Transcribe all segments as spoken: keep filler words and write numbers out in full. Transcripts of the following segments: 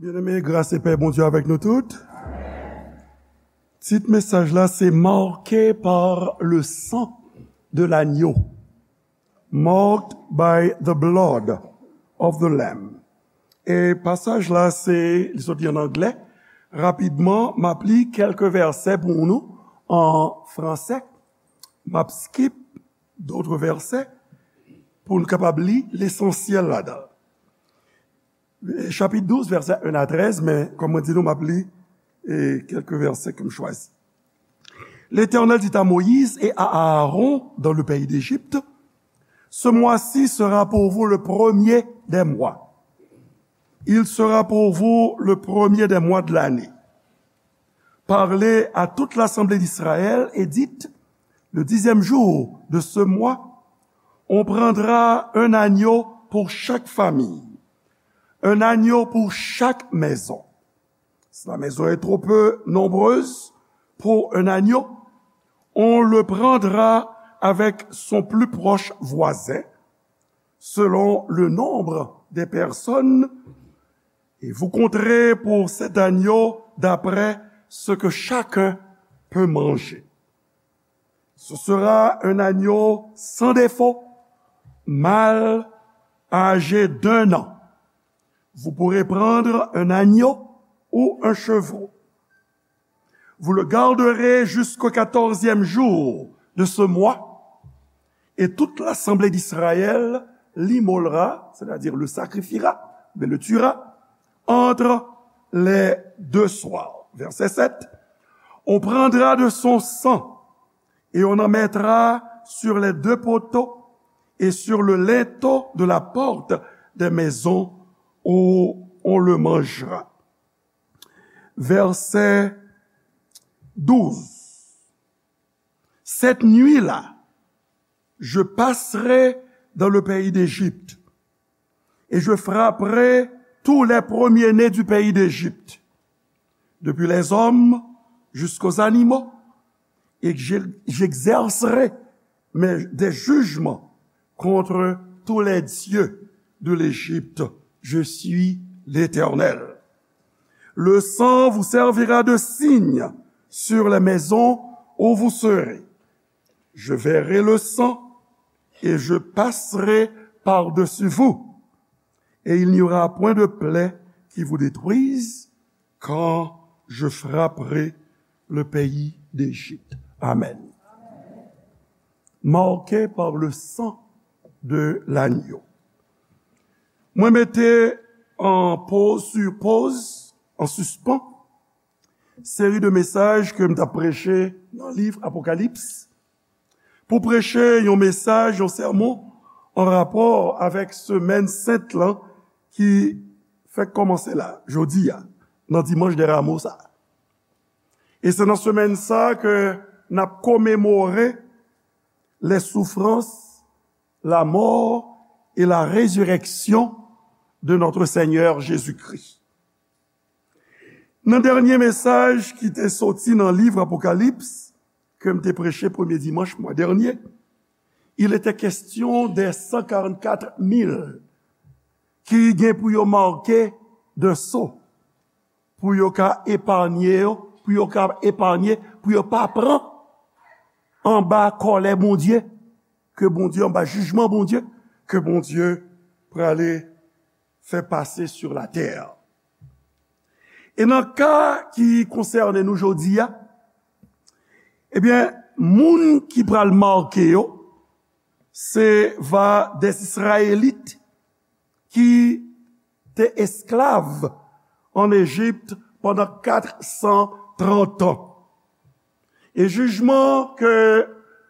Byeneme, gras e pè Bondye avèk nou tout. Tit mesaj la se Marqué par le sang de l'agneau. Marked by the blood of the lamb. E pasaj la se, li soti an anglè. Rapidman, m ap li kèlke vèsè pou nou an fransè. M ap skip d'autres versets pou nou kapab li lesansyèl ladan. Chapit douz, vèsè en a trèz, men kòm mwen di nou, m ap li e kèlke vèsè ke m chwazi. L'Éternel dit à Moïse et à Aaron dans le pays d'Égypte, ce mois-ci sera pour vous le premier des mois. Il sera pour vous le premier des mois de l'année. Parlez à toute l'assemblée d'Israël et dites, le dixième jour de ce mois, on prendra un agneau pour chaque famille, un agneau pour chaque maison. Si la maison est trop peu nombreuse pour un agneau, on le prendra avec son plus proche voisin, selon le nombre des personnes, et vous compterez pour cet agneau d'après ce que chacun peut manger. Ce sera un agneau sans défaut, mâle, âgé d'un an. Vous pourrez prendre un agneau ou un chevreau. Vous le garderez jusqu'au quatorzième jour de ce mois, et toute l'assemblée d'Israël l'immolera, c'est-à-dire le sacrifiera, mais le tuera, entre les deux soirs. Verset sept. On prendra de son sang et on en mettra sur les deux poteaux et sur le linteau de la porte des maisons où on le mangera. Verset douze. Cette nuit-là, je passerai dans le pays d'Égypte et je frapperai tous les premiers-nés du pays d'Égypte, depuis les hommes jusqu'aux animaux, et j'exercerai des jugements contre tous les dieux de l'Égypte. Je suis l'Éternel. Le sang vous servira de signe sur les maisons où vous serez. Je verrai le sang et je passerai par-dessus vous, et il n'y aura point de plaie qui vous détruise quand je frapperai le pays d'Égypte. Amen. Marqué par le sang de l'agneau. Mwen mete an poz sou poz, an sispan, seri de mesaj ke m t ap preche nan liv Apokalips, pou preche yon mesaj, yon sèmon an rapò avèk semèn sent lan ki fèk kòmanse la, jodi a, nan dimanch dè ramo sa. E se nan semèn sa ke n ap komemore les souffrances, la mort et la résurrection de notre Seigneur Jésus-Christ. Nan dènye mesaj ki te soti nan liv Apokalips, ke m te preche premye dimanch mwa dènye, il était question des cent quarante-quatre mille ki gen pou yo make de so, pou yo ka epanye yo, pou yo ka epanye, pou yo pa pran anba kòlè Bondye, ke Bondye, anba jijman Bondye, ke Bondye prale fè pase sou latè. E nan ka ki konsène nou jodi a, ebyen, moun ki pral make yo, se va des Israélites ki te esklav an Ejip pandan kat san trant an. E jijman ke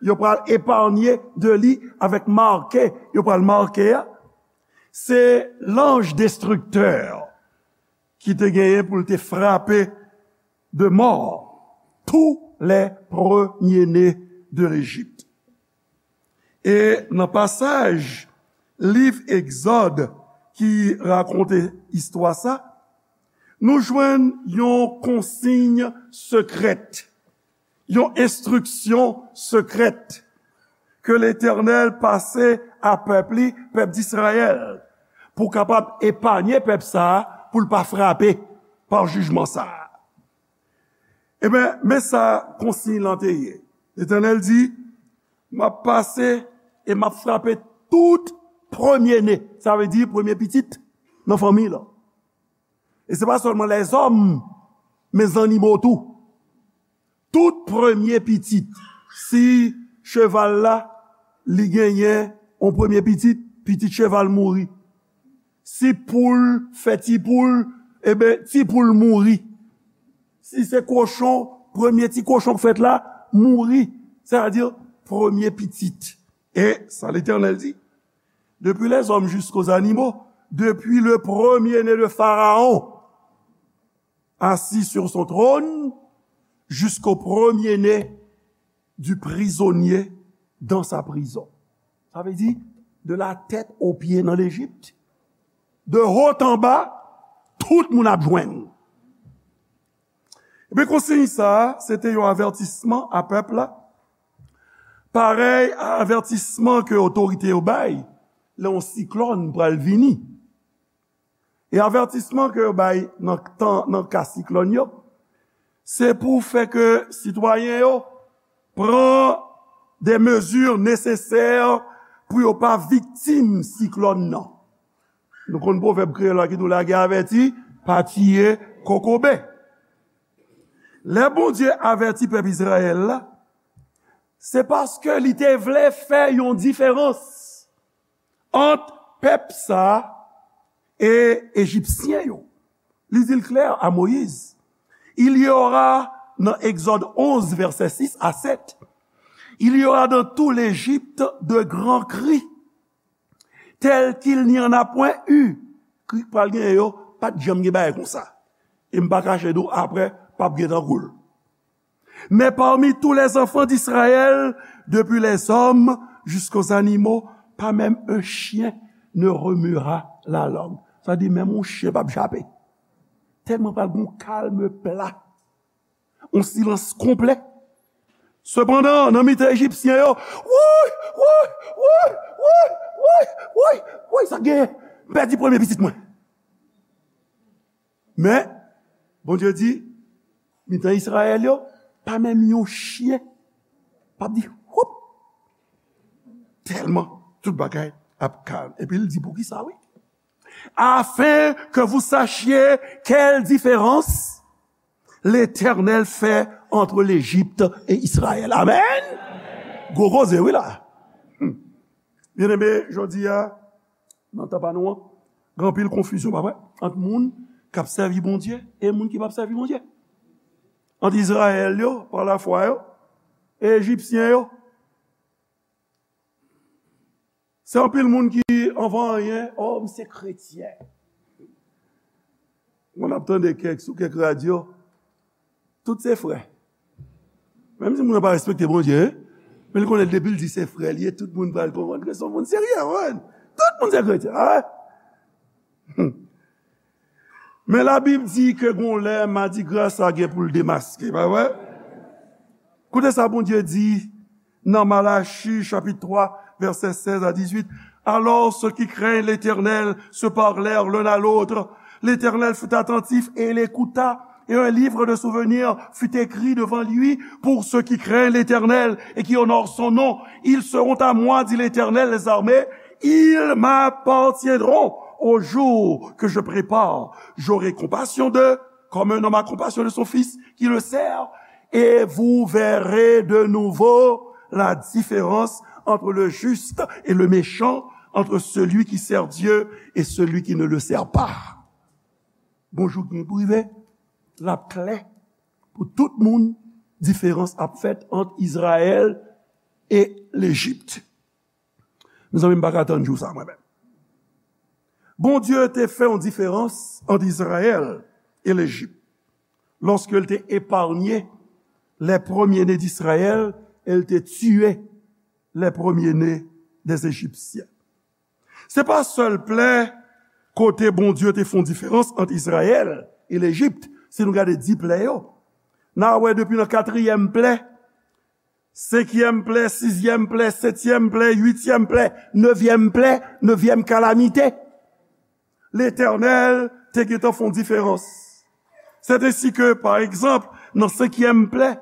yo pral epanye de li avèk make yo pral make a, se lanj destriktè ki te genyen pou l te frape de mò tous les premiers-nés de l'Égypte. E nan pasaj liv Egzòd ki rakonte istwa sa, nou jwenn yon konsiy sekrè, yon enstriksyon sekrè ke Letènèl pase a pèp li, pèp Izrayèl, pou kapab epanye pèp sa a pou l pa frape pa jijman sa a. Ebyen, men sa konsiy lan te ye. Letènèl di, "M ap pase e m ap frape tout premye ne." Sa vle di premye pitit nan fanmi lan. E se pa sèlman lèzòm, men zannimo tou. Tout premye pitit. Si cheval la, li genyen yon premye pitit, pitit cheval mouri. Si poul fè ti poul, ebyen, ti poul mouri. Si se kochon, premye ti kochon k fèt la, mouri. Sètadi, premye pitit. E sa Letènèl di, depuis les hommes jusqu'aux animaux, depuis le premier-né de Pharaon, assis sur son trône, jusqu'au premier-né du prisonnier dans sa prison. Sa vle di, de la tête aux pieds nan Lejip, de haut en bas, tout moun ap jwenn. Ebyen, konsiy sa a, se te yon avètisman a pèp la, parèy a avètisman ke otorite yo bay lè yon siklòn pral vini. E avètisman ke yo bay nan tan, nan ka siklòn yo, se pou fè ke sitwayen yo pran de mezi nesesè pou yo pa viktim siklòn nan. Nou konn pwovèb kreyòl la ki di w lage avèti, pa tiye kokobe. Lè Bondye avèti pèp Izrayèl la, se paske li te vle fè yon diferans ant pèp sa a e Ejipsyen yo. Li di l klè a Moyiz. Il y aura, nan Egzòd onz, vèsè sis a sèt, il y aura dans tout l'Égypte de grands cris, tels qu'il n'y en a point eu. Kri k pral genyen yo, pa t janm gen bagay konsa. E m pa kache di w, apre, p ap gen tankou l. Mais parmi tous les enfants d'Israël, depuis les hommes jusqu'aux animaux, pas même un chien ne remuera la langue. Sa di, menm yon chen p ap jape. Tèlman pral gen yon kalm pla. Yon silans konplè. Sepandan, nan mitan Ejipsyen yo, woy, woy, woy, sa genyen? M pèdi premye pitit mwen. Men, Bondye di, mitan Izrayèl yo, pa menm yon chen p ap di, woup! Tèlman tout bagay ap kalm. Epi l di, poukisa, wi? Afin que vous sachiez quelle différence l'Éternel fait entre l'Égypte et Israël. Amen! Gwo koze, wi, la. Hmm. Byeneme, jodi a, nan tan pa nou an, gen anpil konfizyon, pa vre? Ant moun k ap sèvi Bondye e moun ki p ap sèvi Bondye. Ant Izrayèl yo, pa lafwa yo, e Ejipsyen yo. Se anpil moun ki anvan anyen, o, m se kretyen. Mwen ap tande kèk, sou kèk radyo, tout se frè. Menm si moun nan pa respekte Bondye, men li konnen depi l di se frè li ye, tout moun pral konprann ke se yon moun serye, wi. Tout moun se kretyen, a. Men Labib di ke gon lè madigra sa gen pou l demaske, pa vre? Koute sa Bondye di nan Malachi, chapitre trois, versets seize à dix-huit. Alors ceux qui craignent l'Éternel se parlèrent l'un à l'autre. L'Éternel fut attentif et il écouta, et un livre de souvenirs fut écrit devant lui pour ceux qui craignent l'Éternel et qui honorent son nom. Ils seront à moi, dit l'Éternel des armées, ils m'appartiendront au jour que je prépare. J'aurai compassion d'eux, comme un homme a compassion de son fils qui le sert, et vous verrez de nouveau la différence entre le juste et le méchant, entre celui qui sert Dieu et celui qui ne le sert pas. Bon jou k gen pou rive, l ap klè pou tout moun, diferans ap fèt ant Izrayèl e Lejip. Mezanmi, m pa ka tann jou sa, mwen menm. Bondye te fè yon diferans ant Izrayèl e Lejip, lorsque il te épargné les premiers-nés d'Israël et il te tué les premiers-nés des Égyptiens. Se pa sèl plè kote Bondye te fè yon diferans ant Izrayèl e Lejip, si nou gade dis plè yo. N a wè depi nan katriyèm plè, senkyèm plè, sizyèm plè, setyèm plè, uityèm plè, nevyèm plè, nevyèm kalamite. Letènèl te gentan fè yon diferans. C'est ainsi que, par exemple, nan senkyèm plè,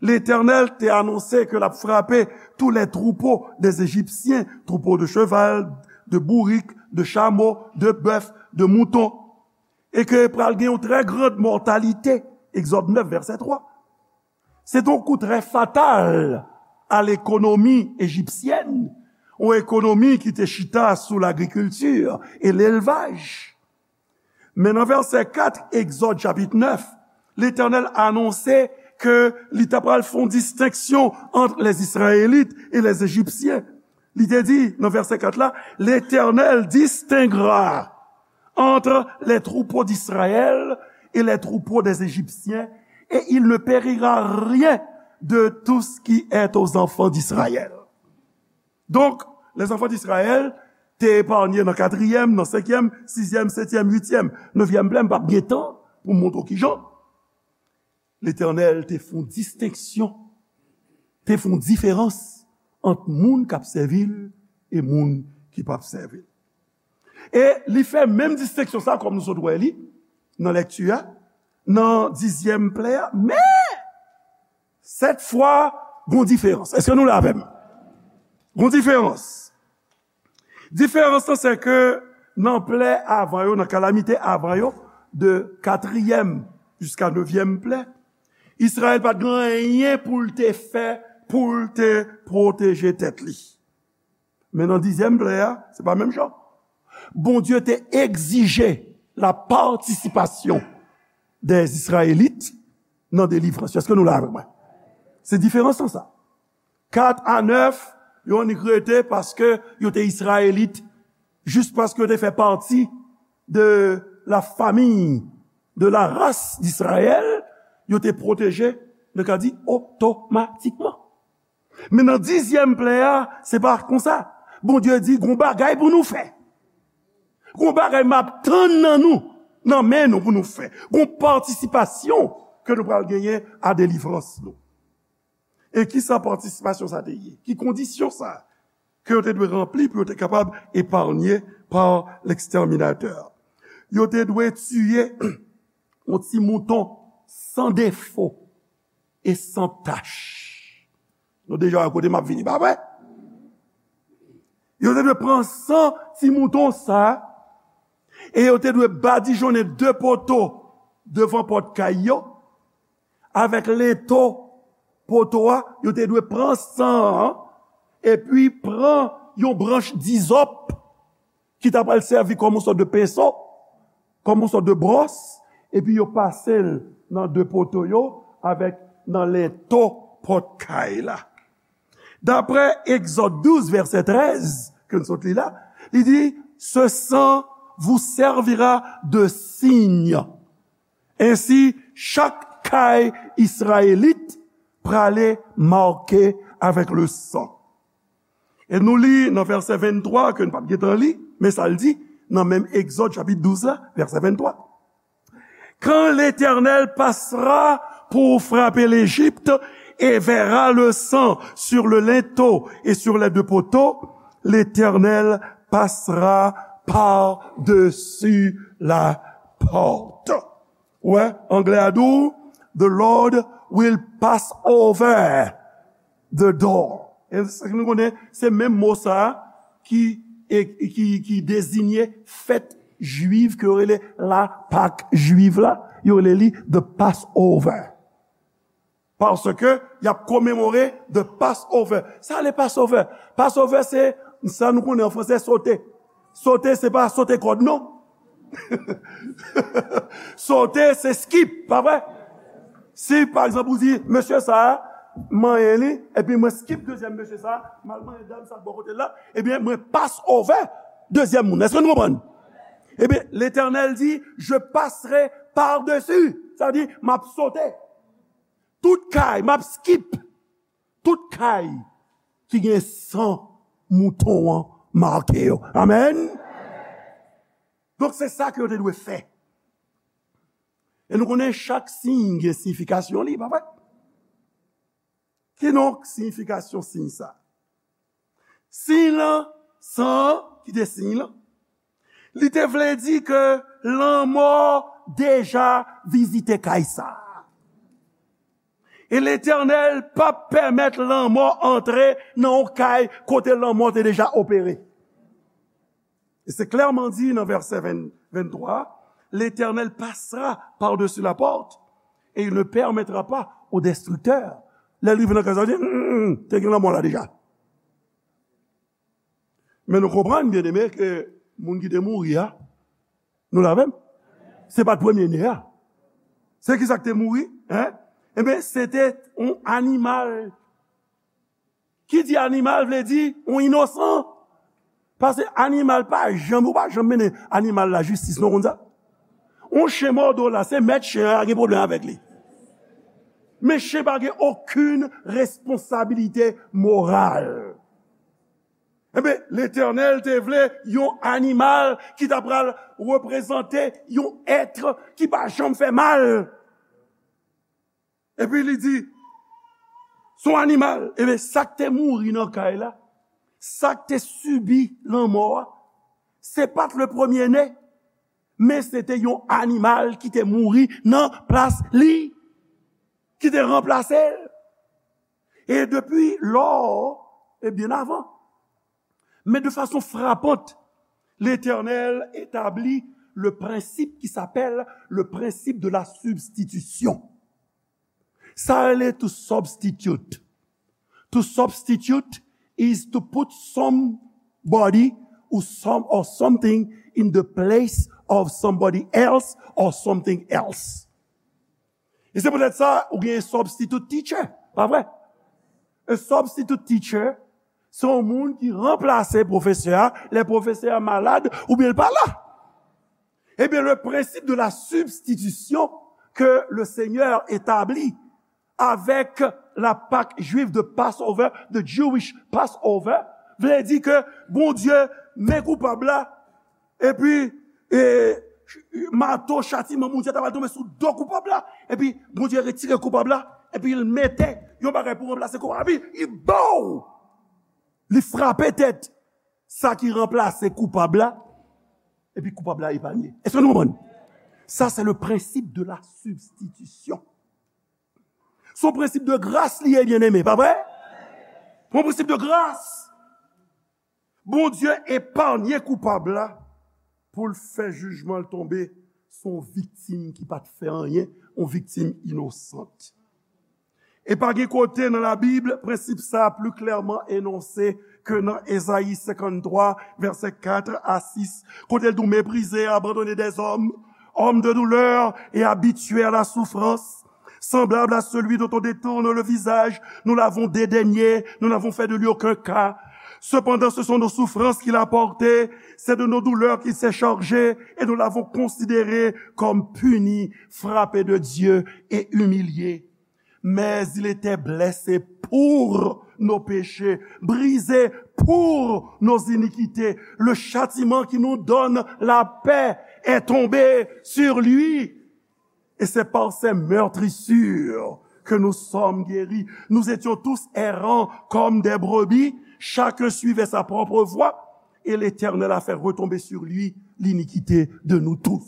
Letènèl te anonse ke l ap frape tous les troupeaux des Égyptiens, troupeaux de cheval, de bourrique, de chameau, de bœuf, de mouton, e ke pral gen yon très grande mortalité, Egzòd nèf, vèsè twa. Se te yon kou trè fatal a lekonomi ejipsyèn, yon ekonomi ki te chita sou lagrikilti e lelvaj. Men nan vèsè kat, Egzòd chapit nèf, Letènèl anonse ke li ta pral fè yon distenksyon ant les Israélites et les Égyptiens. Li te di nan vèsè kat la, L'Éternel distinguera entre les troupeaux d'Israël et les troupeaux des Égyptiens, et il ne périra rien de tout ce qui est aux enfants d'Israël. Donk, les enfants d'Israël te epanye nan katriyèm, nan senkyèm, sizyèm, setyèm, uityèm, nevyèm plè, m p ap gen tan pou m montre w kijan. Letènèl te fè yon distenksyon, te fè yon diferans ant moun k ap sèvi l e moun ki p ap sèvi l. E li fè menm distenksyon sa, kòm nou sot wè li nan lèkti a, nan dizyèm plè a, men sèt fwa, gon diferans. Èske nou la avè m? Gon diferans. Diferans lan, se ke nan plè avan yo, nan kalamite avan yo, de katriyèm jiska nevyèm plè, Izrayèl pa t gen anyen pou l te fè, pou l te pwoteje tèt li. Men nan dizyèm plè a, se pa menm jan. Bondye te egzije la participation des Israélites nan delivrans yo. Èske nou la avè mwen? Se diferans lan sa. Kat a nèf, yo annik rete paske yo te Izrayelit, jis paske yo te fè pati de la famille, de la race d'Israël, yo te pwoteje, nou ka di, otomatikman. Men nan dizyèm plè a, se pa konsa. Bondye di, gon bagay pou nou fè. Gon bagay m ap tann nan nou, nan men nou pou nou fè. Gon patisipasyon ke nou pral genyen a delivrans nou. E ki sa patisipasyon sa te ye? Ki kondisyon sa ke yo te dwe ranpli pou yo te kapab epanye pa lekstèminatè? Yo te dwe tiye yon ti mouton san defo e san tach. Nou deja wè kote m ap vini, pa vre? Yo te dwe pran san ti mouton sa, e yo te dwe badijonnen de poto devan pòt kay yo, avèk lento poto a, yo te dwe pran san an, epi pran yon branch dizòp ki ta pral sèvi kòm yon sòt de penso, kòm yon sòt de bwòs, epi yo pase l nan de poto yo avèk nan lento pòt kay la. Daprè Egzòd douz, vèsè trèz, ke n sot li la, li di, ce sang vous servira de signe. Ainsi, chaque caille israélite prale make avec le sang. E nou li nan vèsè venntwa, ke n p ap gentan li, men sa l di, nan menm Egzòd chapit douz la, vèsè venntwa. Quand l'Éternel passera pour frapper l'Égypte et verra le sang sur le linteau et sur les deux poteaux, l'Éternel passera par-dessus la porte. Wè, anglè a di w, the Lord will pass over the door. E sa nou konnen, se menm mo sa a ki, e, ki, ki dezinye fèt jwiv ke yo rele la Pak jwiv la, yo rele li the Passover. Paske y ap komemore the Passover. Sa le Passover? Passover se sa nou konnen an fransè, sote. Sote, se pa sote kòd, non. Sote, se skip, pa vre? Si, pa egzanp, ou di, mesye sa a, manyen li, epi mwen skip dezyèm mesye sa a, m al manyen dam sa k bò kote l la, ebyen, mwen pass over dezyèm moun. Èske nou konprann? Ebyen, Letènèl di, je passerai par-dessus. Sa vle di, m ap sote. Tout kay, m ap skip. Tout kay ki gen san mouton an make yo. Amèn. Donk, se sa ke yo te dwe fè. E nou konnen chak siy gen siyifikasyon li, pa vre? Kidonk, siyifikasyon siy sa? Siy lan, san an ki te siy lan, Li te vle di ke lanmò deja vizite kay sa a. E Letènèl p ap pèmèt lanmò antre nan yon kay kote lanmò te deja opere. E se klèman di nan vèsè ven, venntwa, L'Éternel passera par-dessus la porte et il ne permettra pas au destructeur. Lè l rive nan kay sa, li di, "Mm, mm, mm, te gen lanmò la deja." Men nou konprann, byeneme, ke moun ki te mouri a, nou la menm? Se pa t premye ne a. Se ki sa k te mouri? Hein? Ebyen, se te yon animal. Ki di animal vle di yon inosan. Paske animal pa janm, ou pa janm mennen animal lajistis, non, konn sa? Yon chen mòde w la, se mèt chen an gen pwoblèm avèk li. Men chen pa gen okenn responsabilite moral. Ebyen, Letènèl te vle yon animal ki ta pral reprezante yon èt ki pa janm fè mal. Epi li di, se yon animal. Ebyen, sa k te mouri nan kay la, sa k te sibi lanmò a, se pa t le premye ne, men se te yon animal ki te mouri nan plas li, ki te ranplase l. E depi lò, e byen avan. Mais de façon frappante, l'Éternel établit le principe qui s'appelle le principe de la substitution. Sa rele to substitute. To substitute is to put somebody or some or something in the place of somebody else or something else. E se poutèt sa, ou gen substitute teacher, pa vre? Un substitute teacher, se yon moun ki ranplase pwofesè a, lè pwofesè a malad, oubyen l pa la. Ebyen, le principe de la substitution que le Seigneur établit avec la Pâque juive de Passover, the Jewish Passover, vle di ke Bondye men koupab la, epi, e, mato chatiman Bondye ta pral tonbe sou do koupab la, epi Bondye retire koupab la, epi l mete yon bagay pou ranplase koupab la, epi li bow! Li frape tèt sa ki ranplase koupab la, epi koupab la epanye. Èske nou konprann? Sa, se le principe de la substitution. Se yon prensip de gras li ye, byeneme, pa vre? Se yon prensip de gras. Bondye epanye koupab la pou l fè jijman l tonbe sou yon viktim ki pa t fè anyen, yon viktim inosant. E pa gen kote nan Labib prensip sa a pli klèman enonse ke nan Ezayi senkanntwa, vèsè kat a sis, kote l di, Méprisé et abandonné des hommes, homme de douleur et habitué à la souffrance, semblable à celui dont on détourne le visage, nous l'avons dédaigné, nous n'avons fait de lui aucun cas. Cependant, ce sont nos souffrances qu'il a portées, c'est de nos douleurs qu'il s'est chargé, et nous l'avons considéré comme puni, frappé de Dieu et humilié. Mais il était blessé pour nos péchés, brisé pour nos iniquités. Le châtiment qui nous donne la paix est tombé sur lui. Et c'est par ses meurtrissures que nous sommes guéris. Nous étions tous errants comme des brebis, chacun suivait sa propre voie, et l'Éternel a fait retomber sur lui l'iniquité de nous tous.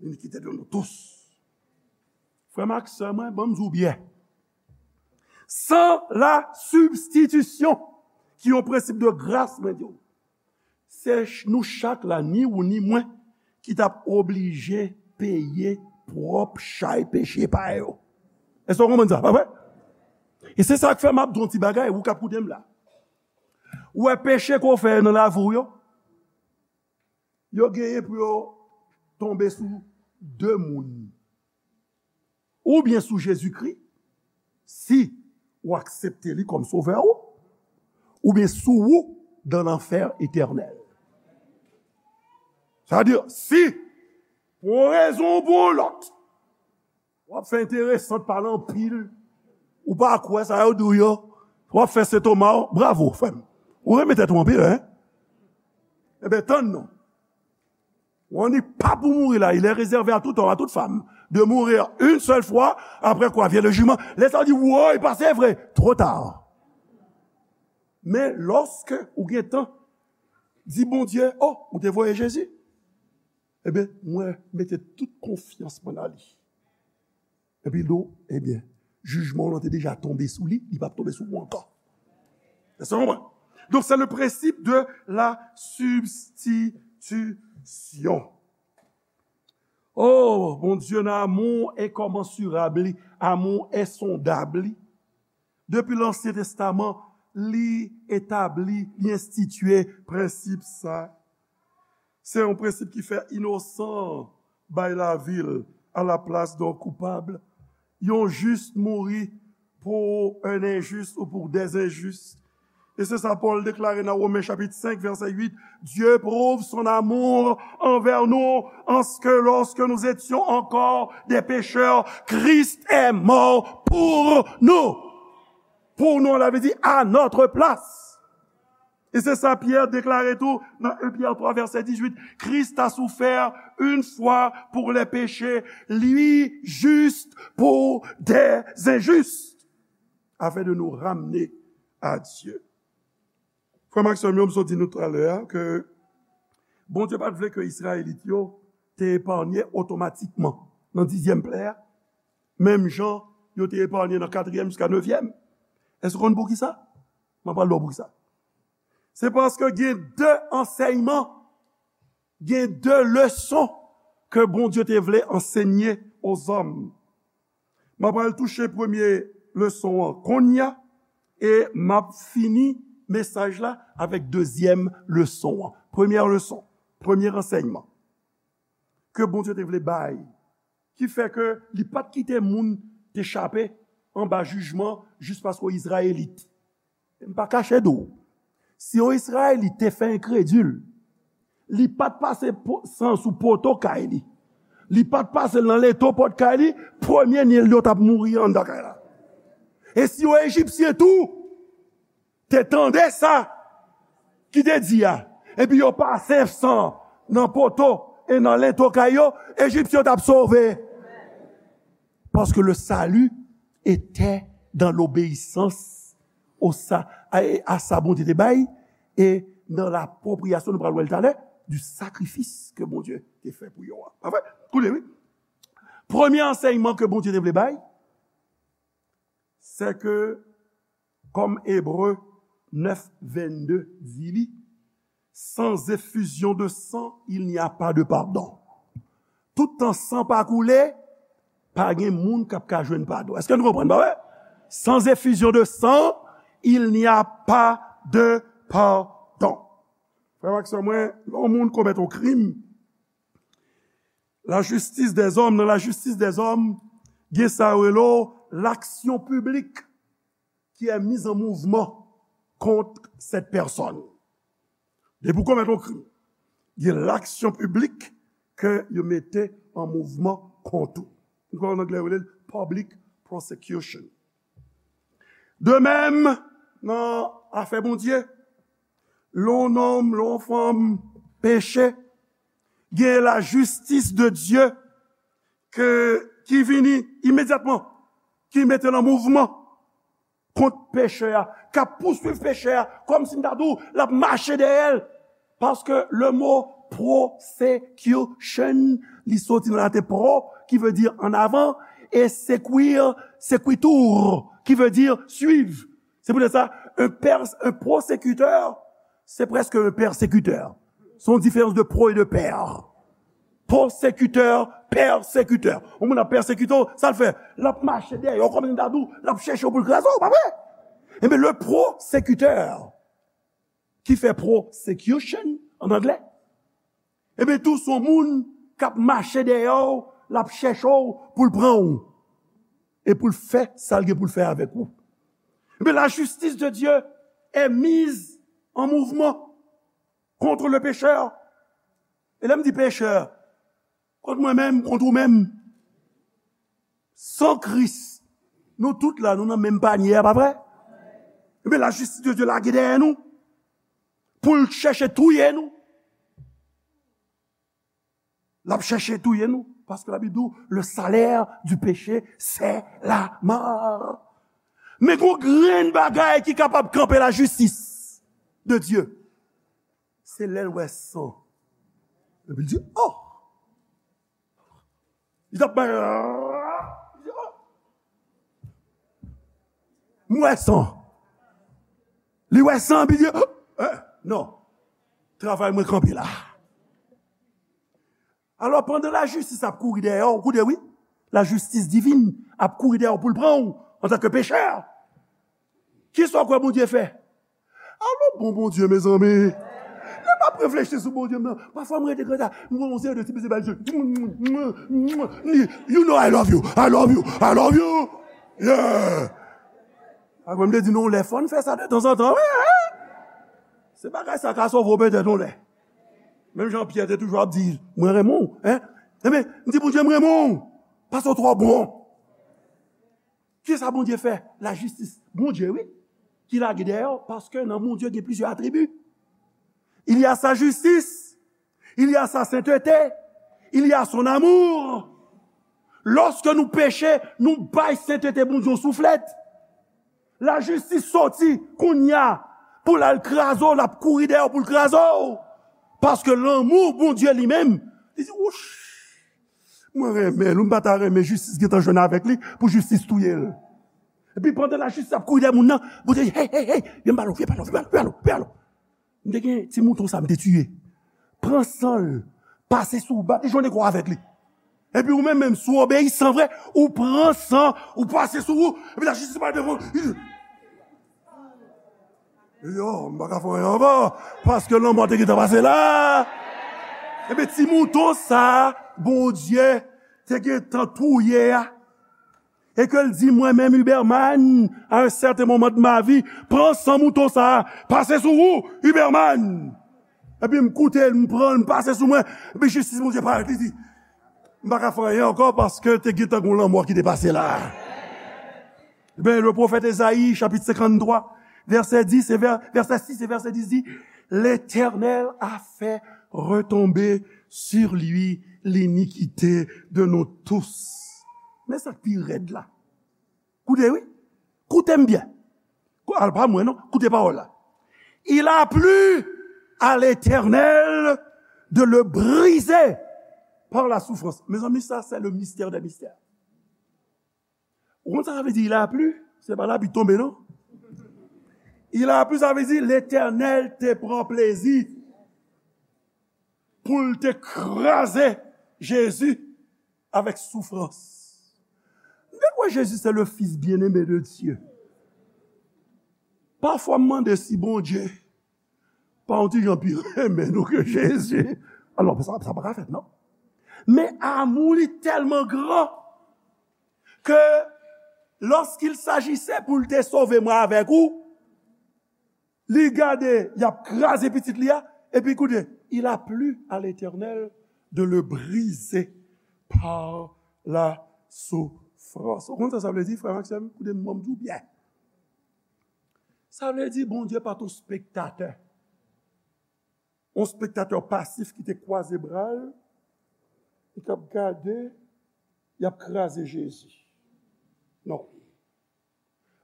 L'iniquité de nous tous. Frè m ak sè mwen, ban m di w byen. San la sibstitisyon, ki yon prensip de gras, mwen di w, se ch-, nou chak la, ni ou ni mwen, ki t ap oblije peye pwòp chay peche pa yo. Èske w konprann sa, pa vre? E se sa k fè m ap di w yon ti bagay, ou k ap koute m la. Ou wè peche ke w fè nan lavi w yo, yo genyen pou yo tonbe sou de moun. Oubyen sou Jezikri, si ou aksepte li kòm sovè ou, oubyen sou ou dan lanfè etènèl. Sa vle di, si, pou yon rezon ou pou yon lòt, w ap fè enteresan, pale anpil, ou pa kwè sa yo di w yo, w ap fè sentoma w, bravo, frè m. Ou renmen tèt ou anpil, en? Ebyen, tann non. On n'est pas pour mourir là, il est réservé à tout homme, à toute femme, de mourir une seule fois, après quoi vient le jugement. Lè sa yo di, woy, pase vre, twò ta. Men lòske ou gen tan, Di Bondye, "O, ou te voye Jezi? Ebyen, mwen mete tout konfyans mwen nan li." Epi l di w, "Ebyen, jijman w lan te deja tonbe sou li, li p ap tonbe sou ou ankò." Èske w konprann? Donk, se le prensip de la sibstitisyon. Oh, Bondye nan amou enkomansirab li, amou ensondab li. Depi Lansyen Testaman, li etabli, li enstitye prensip sa. Se yon prensip ki fè inosan bay lavi l alaplas de yon koupab. Yon jis mouri pour un injuste ou pour des injustes. E se sa Pòl deklare nan Women chapit senk, vèsè uit, Dieu prouve son amour envers nous, en ce que lorsque nous étions encore des pécheurs, Christ est mort pour nous. Pour nous, la vle di à notre place. E se sa Pyè deklare tou nan en Pyè twa, vèsè dizuit, Christ a souffert une fois pour les péchés, le juste pour les injustes, afin de nous ramener à Dieu. Frè m ak sè m yo, m sot di nou talè a ke Bondye pa t vle ke Izrayelit yo te epanye otomatikman nan dizyèm plè a, menm jan yo te epanye nan katriyèm jiska nevyèm. Èske w konn poukisa? Mwen pral di w poukisa. Se paske gen de ansèyman, gen de leson ke Bondye te vle ansenye ozòm. M ap al touche premye leson an kounye a, e m ap fini mesaj la avèk dezyèm leson an. Premyè leson, premye ansèyman ke Bondye te vle bay, ki fè ke li pa t kite moun te chape anba jijman jis paske w Izrayelit. M pa kache di w, si yon Izrayelit te fè enkredil, li pa t pase po-, san sou poto kay li, li pa t pase l nan leto pòt kay li, premye Nil yo t ap mouri anndan kay la. E si yon Ejipsyen tou te tande sa ki te di a, epi yo pase san nan poto e nan leto kay yo, Ejipsyen yo t ap sove. Paske le salut était dans l'obéissance au sa-, à, à sa Bondye te bay, e nan lapropriyasyon, nou pral wè l talè, du sacrifice ke Bondye te fè pou yo a. Pa vre? Koute, wi. Premye ansèyman ke Bondye te vle bay, se ke, kòm Ebre nèf vennde di li, sans effusion de sang, il n'y a pas de pardon. Toutan san pa koule, pa gen moun k ap ka jwenn padon. Èske nou konprann, pa vre? Sans effusion de sang, il n'y a pas de pardon. Frè m ak sè mwen, lè yon moun komèt yon krim, lajistis dèzòm, nan lajistis dèzòm, gen sa yo rele w l'action publique qui est mise en mouvement contre cette personne. Depi w komèt yon krim, gen l'action publique ke yo mete an mouvman kont ou. Nou konn an anglè yo rele l public prosecution. De menm, nan afè Bondye, lè yon nonm, lè yon fanm peche, gen lajistis de Dye ke, ki vini imedyatman, ki mete l an mouvman kont pechè a, k ap pouswiv pechè a, kòmsi m ta di w, l ap mache dèyè l. Paske le mo prosecution, li soti nan laten pro, ki vle di an avan, e sequir, sequitur, ki vle di swiv. Se poutèt sa, un pers-, un prosekitè, se prèske un pèsekitè. Se yon diferans de pro e de pè. Pwosekitè, pèsekitè. Yon moun ap pèsekite w, sa l fè? L ap mache dèyè w, kòm si m ta di w, l ap chèche w pou l kraze w, pa vre? Ebyen, le prosekitè ki fè prosecution an anglè, ebyen, tou se yon moun k ap mache dèyè w, l ap chèche w pou l pran w, e pou l fè sa l gen pou l fè avèk ou. Ebyen, la justice de Dieu est mise en mouvement contre le pécheur. E lè m di pechè, kont mwen menm, kont ou menm. San Kris, nou tout la, nou nan menm panye a, pa vre? Ebyen, lajistis de Dye lage dèyè nou pou l chèche touye nou. L ap chèche touye nou, paske Labib di w, le salaire du péché, c'est la mort. Men gon grenn bagay ki kapab kanpe lajistis de Dye. Se lè l wè san. Epi l di, oh! Li t ap bay, li di, oh! M wè san. Li wè san, epi li di, oh! Eh, non. Travay mwen kanpe la. Alò, pandan lajistis ap kouri dèyè w, koute wi, lajistis divin ap kouri dèyè w pou l pran w antanke pechè. Kisa w kwè Bondye fè? Alò, bon Bondye, mezanmi. Lè m ap reflechi sou Bondye m nan, pafwa m rete konsa, m wè yon seri de ti beze bay zye. You know I love you, I love you, I love you. Yeah. Apre m te di nou, lè fò n fè sa de tanzantan, wi, hein? Se bagay sa ka sove w petèt yon lè. Menm jan Pyè te toujou ap di, mwen renmen w, hein? Enben, m di Bondye, m renmen w, paske w twò bon. Kisa Bondye fè? Lajistis Bondye, wi, ki lage dèyè w, paske nan Bondye gen plizyè atribi. Il y a sa justice, il y a sa sainteté, il y a son amour. Lòske nou peche, nou bay sentete Bondye yon souflèt. Lajistis soti kounye a pou l al kraze w, l ap kouri dèyè w pou l kraze w. Paske lanmou Bondye li menm, li di, wouch, mwen renmen l, ou m pa ta renmen jistis gentan jwenn avèk li pou jistis touye l. Epi pandan lajistis ap kouri dèyè moun nan, Bondye di, hey, hey, hey, vin ba l, vin ba l, vin ba l, vin ba l, vin ba l. M te gen ti mouton sa m te tiye. Pran san l, pase sou ou, bat li jwenn kò avèk li. Epi ou menm, menm, si w obeyisan vre, ou pran san, ou pase sou ou, epi lajistis pral devan w. Yo, m pa ka fè anyen ankò, paske lanmò te gentan pase la. Epi ti mouton sa, Bondye te gentan touye a, e ke l di mwen menm, Huberman, à un certain moment de ma vie, pran san mouton sa a, pase sou ou, Huberman. Epi m koute l, m pran l, m pase sou mwen, epi jistis Bondye parèt, li di, m pa ka fè anyen ankò paske te gentan gon lanmò ki te pase la. Ebyen, le pwofèt Ezayi, chapit senkanntwa, vèsè dis e vè-, vèsè sis e vèsè dis di, L'Éternel a fait retomber sur lui l'iniquité de nous tous. Men sa k pi rèd la. Koute, wi. Koute m byen. Kou-, al pa mwen, non. Koute pawòl la. Il a plu à l'Éternel de le briser par la souffrance. Mezanmi, sa, c'est le mystère des mystères. Ou konn sa sa vle di, il a plu? Se pa lapli tonbe, non. Il a plu, sa vle di, Letènèl te pran plezi pou l te kraze Jezi avèk soufrans. M te kwè Jezi se le Fils bien-aimé de Dieu. Pafwa, m mande si Bondye pa yon ti jan pi renmen nou ke Jezi. Alò, sa, sa pa ka fèt, non. Men amou li tèlman gran ke lorsqu'il s'agissait pou l te sove mwen avèk ou, li gade, y ap kraze pitit li a, epi koute, il a plu à l'Éternel de le briser par la souffrance. Ou konn sa sa vle di, frè m ak sè m? Koute m, ban m di w byen. Sa vle di Bondye pa t yon spektatè. Yon spektatè pasif ki te kwaze bra l, e k ap gade, y ap kraze Jezi. Non.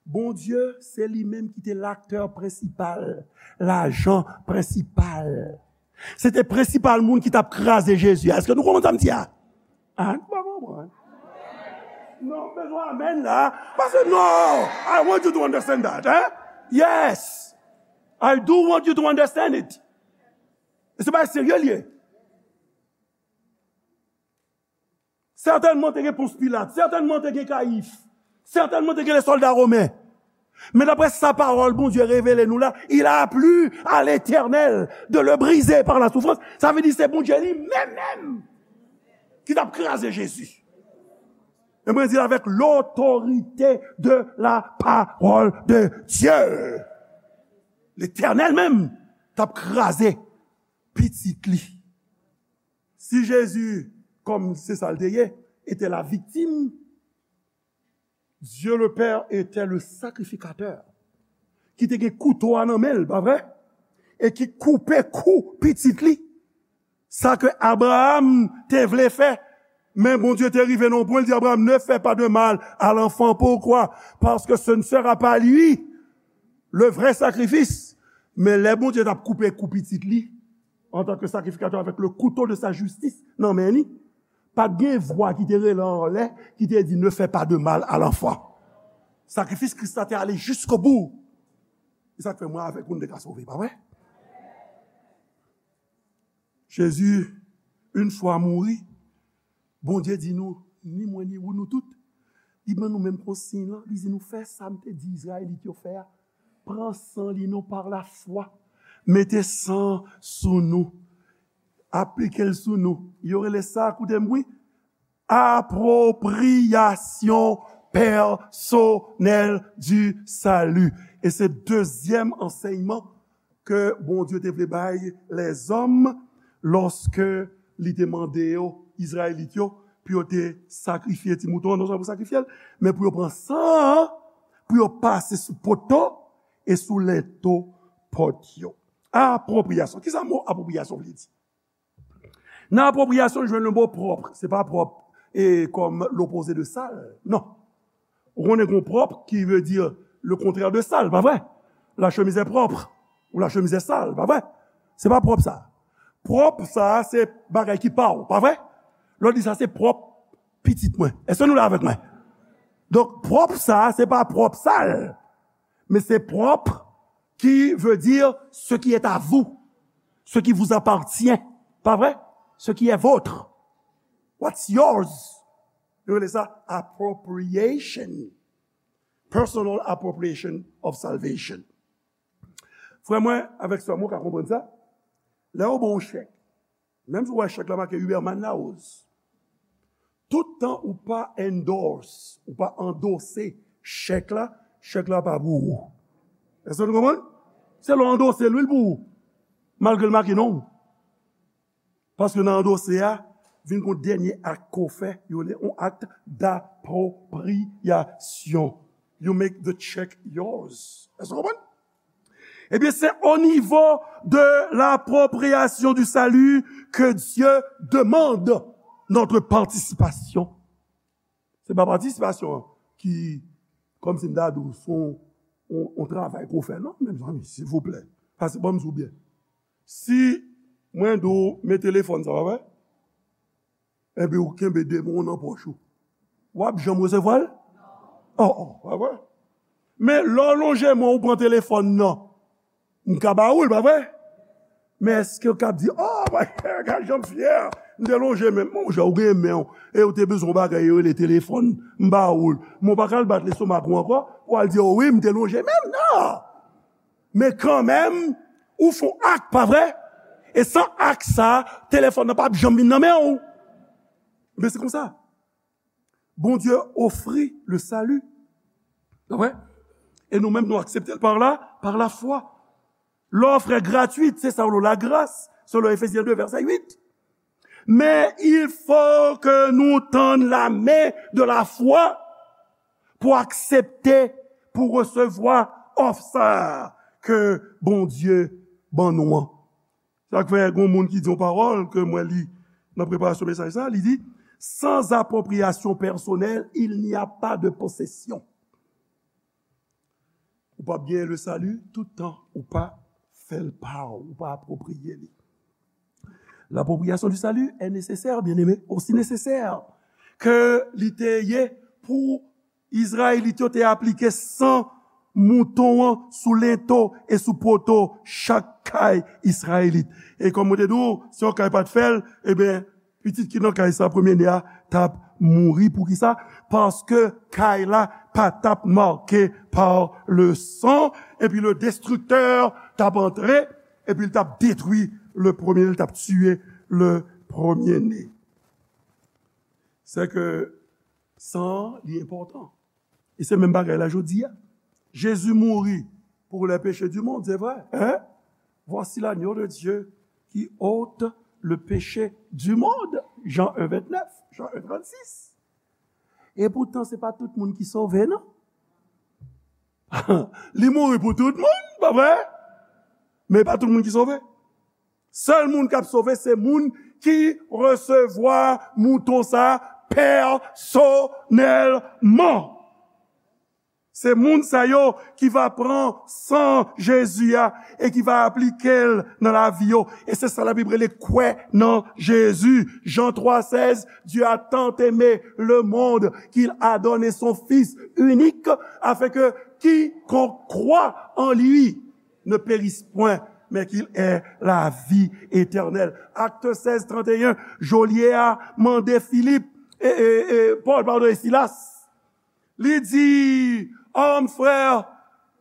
Bondye, se li menm ki te laktè prensipal, lajan prensipal. Se te prensipal moun ki t ap kraze Jezi a. Èske nou konprann sa m di a? Ah, nou pa konprann. Non, m bezwen amèn la. Paske, no, I want you to understand that, hein? Yes. I do want you to understand it. E se bagay serye l ye. Sètènman, te gen Pons Pilat. Sètènman, te gen Kayif. Sètènman, te gen lè sòlda women. Men daprè sa pawòl Bondye revele nou la, il a plu à l'Éternel de le briser par la souffrance. Sa vle di se Bondye li menm menm ki t ap kraze Jezi. E mwen di l avec l'autorité de la parole de Dieu. Letènèl menm t ap kraze pitit li. Si Jezi, kòm se sa l te ye, était la victime, Dieu le Père était le sacrificateur, ki te gen kouto a nan men l, pa vre? E ki koupe kou pitit li. Sa ke Abraram te vle fè, men Bondye te rive nan yon pwen, l di Abraram, ne fais pas de mal à l'enfant. Pourquoi? Parce que ce ne sera pas lui le vrai sacrifice. Men lè Bondye t ap koupe kou pitit li, en tant que sacrificateur avec le couteau de sa justice nan men li, pa t gen vwa ki te rele anlè, ki te di, ne fais pas de mal à l'enfant. Sakrifis Kris la te ale jiskobou. Se sa k fè mwen avèk ou, nou te ka sove, pa vre? Jezi, yon fwa mouri, Bondye di nou, ni mwen, ni ou, nou tout, li ban nou menm konsiy lan, li di nou, fè sa m te di Izrayelit yo fè a. Pran san li non pa lafwa. Mete san sou nou. Aplike l sou nou. Yo rele sa, koute m wi, appropriation personnelle du salut. E se dezyèm ansèyman ke Bondye te vle bay lèzòm lòske li te mande yo, Izrayelit yo, pou yo te sakrifye ti mouton an, non sèlman pou sakrifye l, men pou yo pran san an, pou yo pase sou poto e sou lento pòt yo. Apwopriyasyon. Kisa mo apwopriyasyon vle di? Nan apwopriyasyon, nou jwenn le mo pwòp. Se pa pwòp e kòm lopoze de sal. Non. Ou konnen gen pwòp ki vle di le contraire de sal, pa vre? La chemise est propre. Ou la chemise est sale, pa vre? Se pa pwòp sa. Pwòp sa, se bagay ki pa w, pa vre? Lè w di sa, se pwòp pitit mwen. Èske nou la avèk mwen? Donk, pwòp sa, se pa pwòp sal. Men se pwòp ki vle di ce qui est à vous, ce qui vous appartient. Pa vre? Ce qui est vôtre. What's yours? Yo rele sa appropriation. Personal appropriation of salvation. Frè mwen, avèk sè mwen, ou ka konprann sa. Lè yo ba w yon chèk, menm si w wè chèk la make Huberman Larose, tout tan ou pa endorse, ou pa andose chèk la, chèk la pa pou ou. Èske nou konprann? Se lè w andose l wi l pou ou, malgre l make non w. Paske nan andose a, vin gon dènye ak ke w fè, yo rele yon acte d'appropriation. You make the check yours. Èske w konprann? Ebyen, c'est au niveau de l'appropriation du salut que Dieu demande notre participation. Se pa patisipasyon an ki, kòmsi m ta di w, se yon, yon, yon travay ke w fè. Non, mezanmi, silvouplè. Pase ban m di w byen. Si mwen di w, men telefòn sa, pa vre? Epi w kenbe de men w nan pòch ou. W ap janm resevwa l? Oh, oh, pa vre? Men lè w lonje men w pran telefòn nan, m ka ba ou l, pa vre? Men èske w ka di, oh, mwen, gad jan m fyè, m te lonje men m. Monchè, ou gen men w, e w te bezwen yon bagay yo rele telefòn, m ba ou l. Men w pa ka al bat lestomak ou ankò, pou w al di, oh wi, m te lonje men m, non! Men kanmenm, ou fè yon ak, pa vre? E san ak sa, telefòn nan p ap janm vin nan men w. Men se konsa. Bondye ofri le salut. Pa vre? E nou menm, nou aksepte l par la, par la foi. L'offre est gratuite, c'est ça, la grâce, selon Éphésiens deux, verset huit. Mais il faut que nous tendre la main de la foi pour accepter, pour recevoir offer sa ke Bondye ban nou an. Sa k fè, gen yon moun ki di yon pawòl ke mwen li nan preparasyon mesaj sa, li di, sans appropriation personnelle, il n'y a pas de possession. Ou p ap genyen le salut tout tan ou pa fè l pa w, ou pa apwopriye li. L'appropriation du salut est nécessaire, bien-aimé, aussi nécessaire ke li te ye pou Izrayelit yo te aplike san mouton an sou lento e sou poto chak kay Izrayelit. E kòm mwen te di w, si yon kay pa t fè l, ebyen, pitit ki nan kay sa, premye ne a, t ap mouri. Poukisa? Paske kay la pa t ap make pa le san, epi le destriktè t ap antre, epi l t ap detwi le premye, li t ap tiye le premye ne. Se ke san an, li enpòtan. E se menm bagay la jodi a. Jezi mouri pour les péchés du monde, c'est vrai, hein? Voici l'agneau de Dieu qui ôte le péché du monde. Jean un, vingt-neuf, Jean un, trente-six. E poutan, se pa tout moun ki sove, non. Li mouri pou tout moun, pa vre? Men pa tout moun ki sove. Sèl moun k ap sove, se moun ki resevwa mouton sa pèsonèlman. Se moun sa yo ki va pran san Jezi a e ki va aplike l nan lavi yo. E se sa Labib rele kwè nan Jezi. Jan twa sèz, Dieu a tant aimé le monde qu'il a donné son Fils unique, afin que quiconque croit en lui ne périsse point, mais qu'il ait la vie éternelle. Acte seize, trente et un, Jolye a mande Filip, e, e, e, Pòl, padon, e Silas. Li di, "Homme, frère,"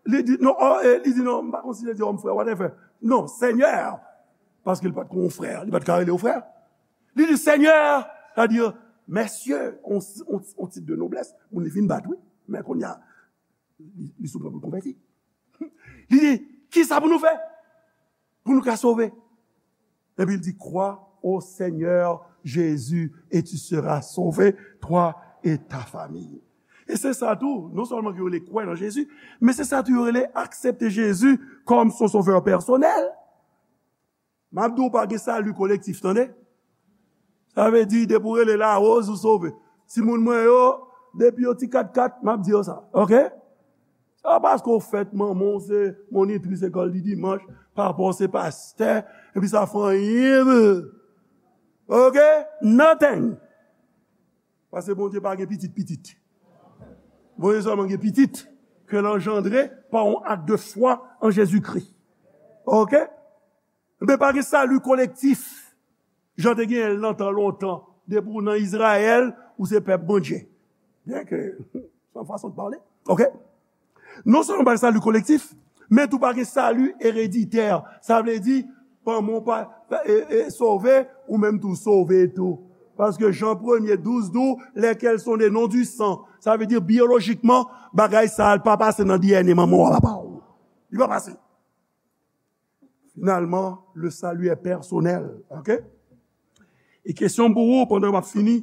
li di, non, oh, eh, li di, non, m pa konn si li di, "Homme, frère," whatever. Non, Seigneur. Paske li pa t kon yon frè, li pa t ka rele yo frè. Li di, "Seigneur," sa di, "Messieurs," on, on, on tit de noblès, moun li fin bat, wi. Men kounye a, li, li sou pwen pou l konvèti. Li di, "Kisa pou nou fè pou nou ka sove?" Epi l di, "Crois au Seigneur Jésus et tu seras sauvé, toi et ta famille." E se sa tou, non sèlman ke yo rele kwè nan Jezi, men se sa tou yo rele aksepte Jezi kòm son sovè pèsonèl. M ap di w pa gen sali kolektif, tande? Sa vle di, depi w rele Larose, ou sove. Timoun mwen yo, depi yo ti kat kat, m ap di yo sa, oke? Se pa paske w fèt manman w se monitris lekòl di dimanch, papa w se pastè, epi sa fè anyen pou. Oke? Nothing. Paske Bondye pa gen pitit pitit. Bondye sèlman gen pitit ke l anjandre pa yon ak de fwa an Jezikri. Oke? Men pa gen sali kolektif. Jan te genyen l nan tan lontan. Depi w nan Izrayèl, ou se pèp Bondye. Byen ke, se yon fason de pale. Oke? Non sèlman pa gen sali kolektif, men tou pa gen sali ereditè. Sa vle di, manman w pa, e, e, sove, ou menm tou sove tou. Paske Jan premye douz di w, lesquels sont nés non du sang. Sa vle di, biyolojikman, bagay sa a pa pase nan D N A manman w a papa w. Li pa pase. Finalman, le salut est personnel. Oke? E kesyon pou ou, pandan m ap fini,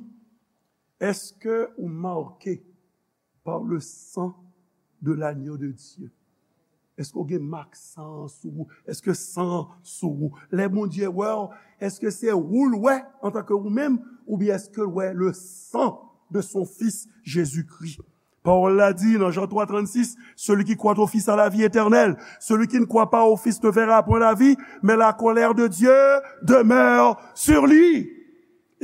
èske ou make par le sang de l'agneau de Dieu? Èske w gen mak san an sou ou? Èske san an sou ou? Lè Bondye wè w, èske se ou l wè antanke ou menm, oubyen èske l wè le sang de son Fils Jésus-Christ? Pawòl la di nan Jan twa trannsis, celui qui croit au Fils a la vie éternelle. Celui qui ne croit pas au Fils ne verra point la vie, mais la colère de Dieu demeure sur lui.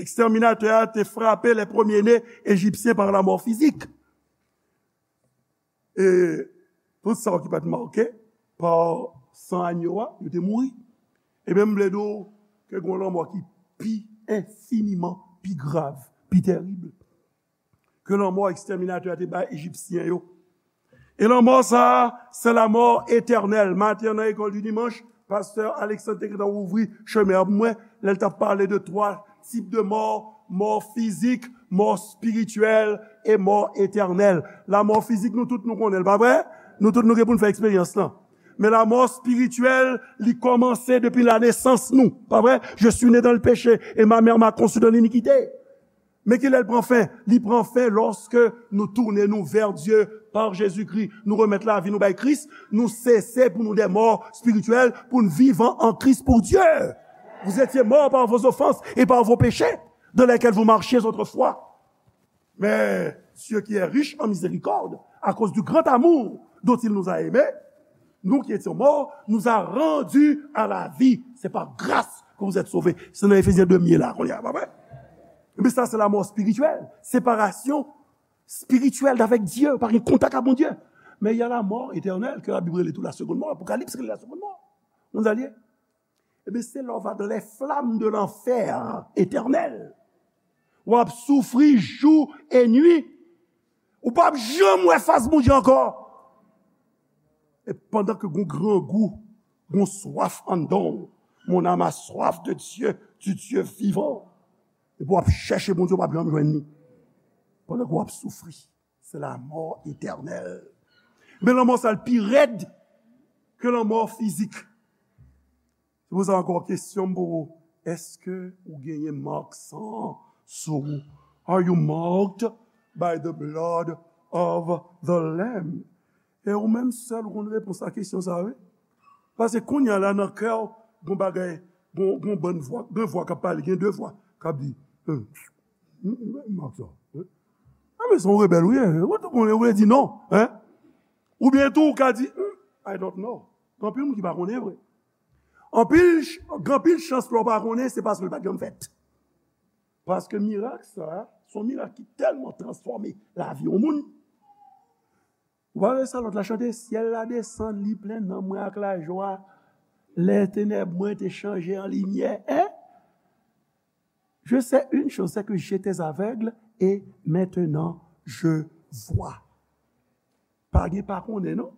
Ekstèminatè a te frape les premiers-nés égyptiens par la mort physique. E tout sa yo ki pa t make pa san agno a, yo te mouri. Ebyen, m vle di w ke gen yon lanmò ki pi enfiniman pi grav, pi tèrib ke lanmò ekstèminatè a te bay Ejipsyen yo. E lanmò sa a, se lamò etènèl. Maten an, nan lekòl di dimanch, pastè Alexandre te gentan ouvri chemen an pou mwen, lè l t ap pale de twa tip de mò, mò fizik, mò espirityèl e mò etènèl. Lamò fizik, nou tout nou konnen l, pa vre? Nou tout nou gen pou n fè eksperyans lan. Men lamò espirityèl, li kòmanse depi lanesans nou, pa vre? Je suis né dans le péché et ma mère m'a conçu dans l'iniquité. Men kilè l pran fen? Li pran fen lòske nou tounen nou vè Dye pa Jezikri, nou remèt lavi nou bay Kris, nou sese pou nou de mò espirityèl, pou n vivan an Kris pou Dye. Vous étiez morts par vos offenses et par vos péchés, dans lesquels vous marchiez autrefois. Mais Dieu qui est riche en miséricorde, à cause du grand amour dont il nous a aimés, nous qui étions morts, nous a rendus à la vie. C'est par grâce que vous êtes sauvés. Se nan Efezyen de m ye la, kounye a, pa vre? Ebyen, sa se lamò espirityèl. Separasyon espirityèl avèk Dye, pa gen kontak ak Bondye. Men y a la mort éternelle, ke Labib rele tou la seconde mort. Apokalips rele la seconde mort. Ou konn sa l ye? Ebyen, se lè w va dans les flammes de l'enfer éternel. W ap soufri jou e nwi. Ou p ap janm wè fas Bondye ankò. E pandan ke gon grangou, gon swaf anndan w, mon âme a soif de Dieu, du Dieu vivant. Epi w ap chèche Bondye, w p ap janm jwenn li. Pandan ke w ap soufri, se lamò etènèl. Men lanmò sa l pi rèd ke lanmò fizik. Se pou sa ankò, kesyon m pou ou, èske ou genyen mak san an sou ou? Are you marked by the blood of the Lamb? E ou menm sèl ou konn repons a kesyon sa a, wi. Paske kounye a la, nan kè w, gon bagay, gon, gon bann vwa, gen vwa k ap pale, gen de vwa k ap di, "Hm, hm, hm, mak sa, wi." A, men se yon rebèl ou ye, ou tou konnen, ou vle di non, en? Oubyen tou, ou ka di, "Hmm, I don't know." Gen anpil moun ki pa konnen vre. Anpil, ch- gen anpil chans lè w pa konnen, se paske l pa t janm fèt. Paske mirak sa, se yon mirak ki tèlman transfòme lavi yon moun. Ou pa wè sa lòt la chante, "Syèl la desann, li plen nanm mwen ak lajwa. Lè tenèb mwen te chanje an limyè." Hein? Je sais une chose, c'est que j'étais aveugle et maintenant je vois. Pa gen pa konnen non,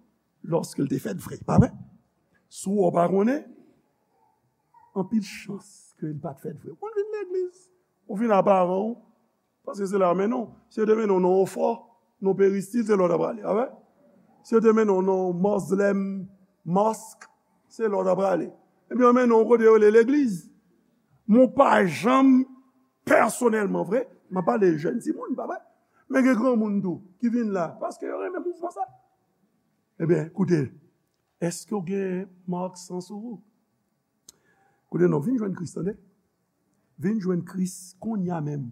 lòske l te fèt vre, pa vre? Si w pa konnen, anpil chans ke l pa t fèt vre. Ou vin legliz, ou vin a paran w, paske se la yo mennen w. Si yo te mennen w nan Ofò, nan Peristil, se la w ta prale, pa vre? Si yo te mennen w nan Moslem Mosque, se la w ta prale. Epi yo mennen w kote yo rele legliz. Mwen pa janm pèsonèlman vre, m ap pale jèn timoun, pa vre? Men gen granmoun tou ki vin la, paske yo renmen mouvman sa. Ebyen, koute, èske w gen mak san sou ou? Koute non, vin jwenn Kris, tande. Vin jwenn Kris kounye a menm.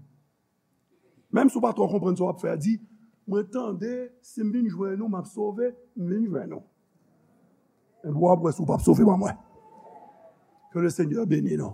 Menm si w pa twò konprann sa w ap fè a, di, "Mwen tande, si m vin jwenn ou, m ap sove, m vin jwenn ou." Epi w ap wè si w p ap sove pa mwen. Que le Seigneur bénisse nous.